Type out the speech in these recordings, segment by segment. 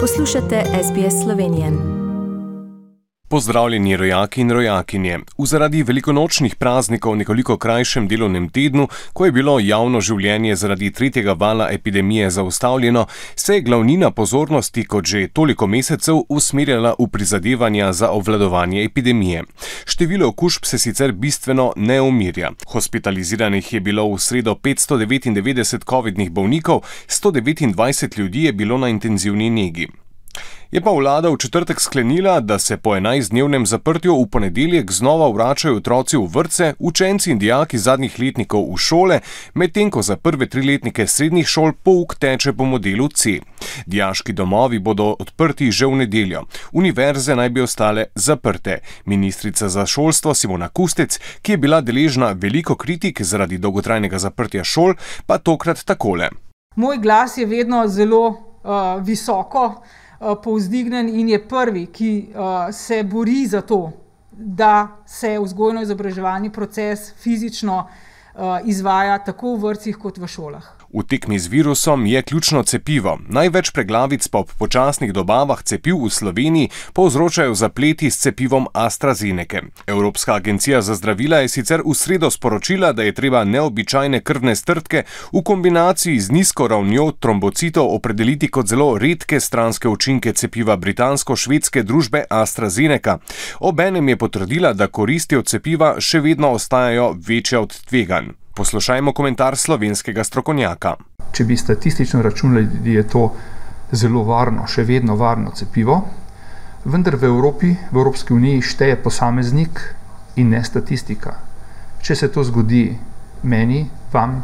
Poslušate SBS Slovenije. Pozdravljeni rojaki in rojakinje. V zaradi velikonočnih praznikov nekoliko krajšem delovnem tednu, ko je bilo javno življenje zaradi tretjega vala epidemije zaustavljeno, se je glavnina pozornosti kot že toliko mesecev usmerjala v prizadevanja za obvladovanje epidemije. Število okužb se sicer bistveno ne umirja. Hospitaliziranih je bilo v sredo 599 covidnih bolnikov, 129 ljudi je bilo na intenzivni negi. Je pa vlada v četrtek sklenila, da se po 11-dnevnem zaprtju v ponedeljek znova vračajo otroci v vrtce, učenci in dijaki zadnjih letnikov v šole, medtem ko za prve 3-letnike srednjih šol pouk teče po modelu C. Dijaški domovi bodo odprti že v nedeljo. Univerze naj bi ostale zaprte. Ministrica za šolstvo Simona Kustec, ki je bila deležna veliko kritik zaradi dolgotrajnega zaprtja šol, pa tokrat takole. Moj glas je vedno zelo visoko povzdignen in je prvi, ki se bori za to, da se vzgojno-izobraževalni proces fizično izvaja tako v vrtcih kot v šolah. V tekmi z virusom je ključno cepivo. Največ preglavic pa ob počasnih dobavah cepiv v Sloveniji povzročajo zapleti s cepivom AstraZenece. Evropska agencija za zdravila je sicer v sredo sporočila, da je treba neobičajne krvne strdke v kombinaciji z nizko ravnjo trombocitov opredeliti kot zelo redke stranske učinke cepiva britansko-švedske družbe AstraZeneca. Obenem je potrdila, da koristi od cepiva še vedno ostajajo večje od tveganj. Poslušajmo komentar slovenskega strokovnjaka. Če bi statistično računali, je to zelo varno, še vedno varno cepivo, vendar v Evropski uniji šteje posameznik in ne statistika. Če se to zgodi meni, vam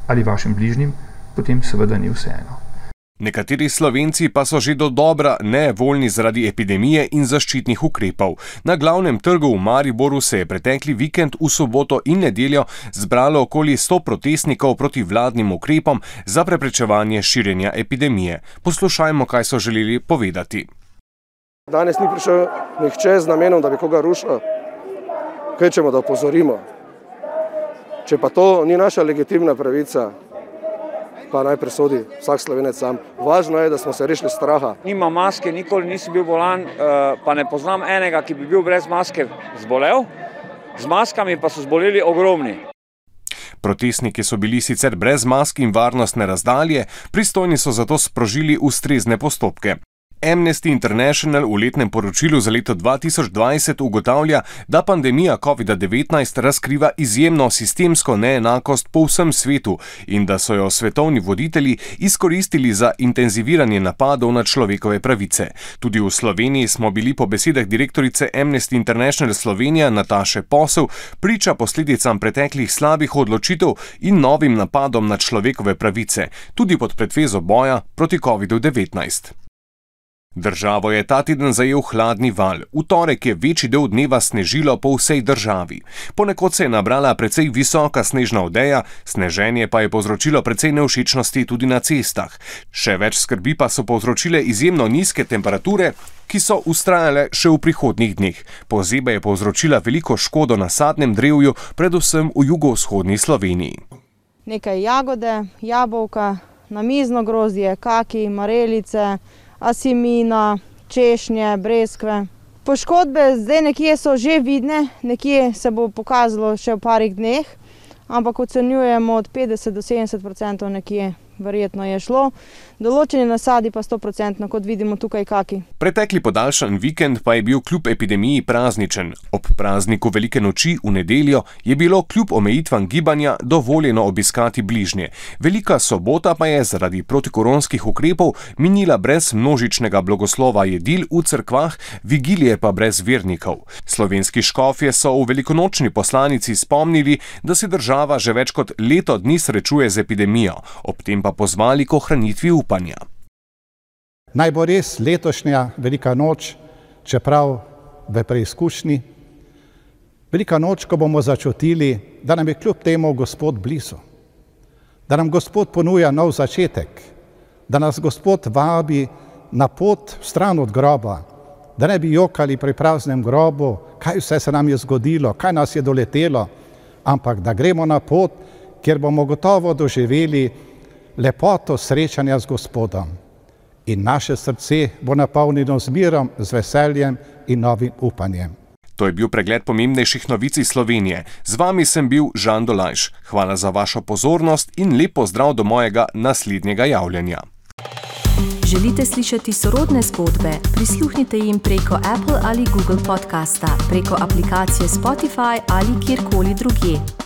ali vašim bližnjim, potem seveda ni vseeno. Nekateri Slovenci pa so že dodobra nevoljni zaradi epidemije in zaščitnih ukrepov. Na glavnem trgu v Mariboru se je pretekli vikend v soboto in nedeljo zbralo okoli 100 protestnikov proti vladnim ukrepom za preprečevanje širjenja epidemije. Poslušajmo, kaj so želeli povedati. Danes ni prišel nihče z namenom, da bi koga rušil. Kvečemo, da opozorimo. Če pa to ni naša legitimna pravica, pa naj presodi vsak Slovenec sam. Važno je, da smo se rešili straha. Nima maske, nikoli nisem bil bolan, pa ne poznam enega, ki bi bil brez maske zbolel. Z maskami pa so zboleli ogromni. Protestniki so bili sicer brez mask in varnostne razdalje, pristojni so zato sprožili ustrezne postopke. Amnesty International v letnem poročilu za leto 2020 ugotavlja, da pandemija COVID-19 razkriva izjemno sistemsko neenakost po vsem svetu in da so jo svetovni voditelji izkoristili za intenziviranje napadov na človekove pravice. Tudi v Sloveniji smo bili po besedah direktorice Amnesty International Slovenija Nataše Posel priča posledicam preteklih slabih odločitev in novim napadom na človekove pravice, tudi pod pretvezo boja proti COVID-19. Državo je ta teden zajel hladni val. V torek je večji del dneva snežilo po vsej državi. Ponekod se je nabrala precej visoka snežna odeja, sneženje pa je povzročilo precej nevšečnosti tudi na cestah. Še več skrbi pa so povzročile izjemno nizke temperature, ki so vztrajale še v prihodnjih dneh. Pozeba je povzročila veliko škodo na sadnem drevju, predvsem v jugovzhodni Sloveniji. Nekaj jagode, jabolka, namizno grozdje, kaki, marelice, asimina, češnje, breskve. Poškodbe zdaj nekje so že vidne, nekje se bo pokazalo še v parih dneh, ampak ocenjujemo od 50 do 70% nekje verjetno je šlo. Določeni nasadi pa 100%, kot vidimo tukaj kaki. Pretekli podaljšan vikend pa je bil kljub epidemiji prazničen. Ob prazniku Velike noči v nedeljo je bilo kljub omejitvam gibanja dovoljeno obiskati bližnje. Velika sobota pa je zaradi protikoronskih ukrepov minila brez množičnega blagoslova jedil v cerkvah, vigilije pa brez vernikov. Slovenski škofje so v velikonočni poslanici spomnili, da se država že več kot leto dni srečuje z epidemijo, ob tem pa pozvali k ohranitvi upanja. Naj bo res letošnja Velika noč, čeprav v preizkušnji, Velika noč, ko bomo začutili, da nam je kljub temu Gospod blizu, da nam Gospod ponuja nov začetek, da nas Gospod vabi na pot stran od groba, da ne bi jokali pri praznem grobu, kaj vse se nam je zgodilo, kaj nas je doletelo, ampak da gremo na pot, kjer bomo gotovo doživeli lepoto srečanja z Gospodom. in naše srce bo napolnjeno z mirom, z veseljem in novim upanjem. To je bil pregled pomembnejših novic iz Slovenije. Z vami sem bil Žan Dolajš. Hvala za vašo pozornost in lep pozdrav do mojega naslednjega javljanja. Želite slišati sorodne zgodbe? Prisluhnite jim preko Apple ali Google podcasta, preko aplikacije Spotify ali kjerkoli drugje.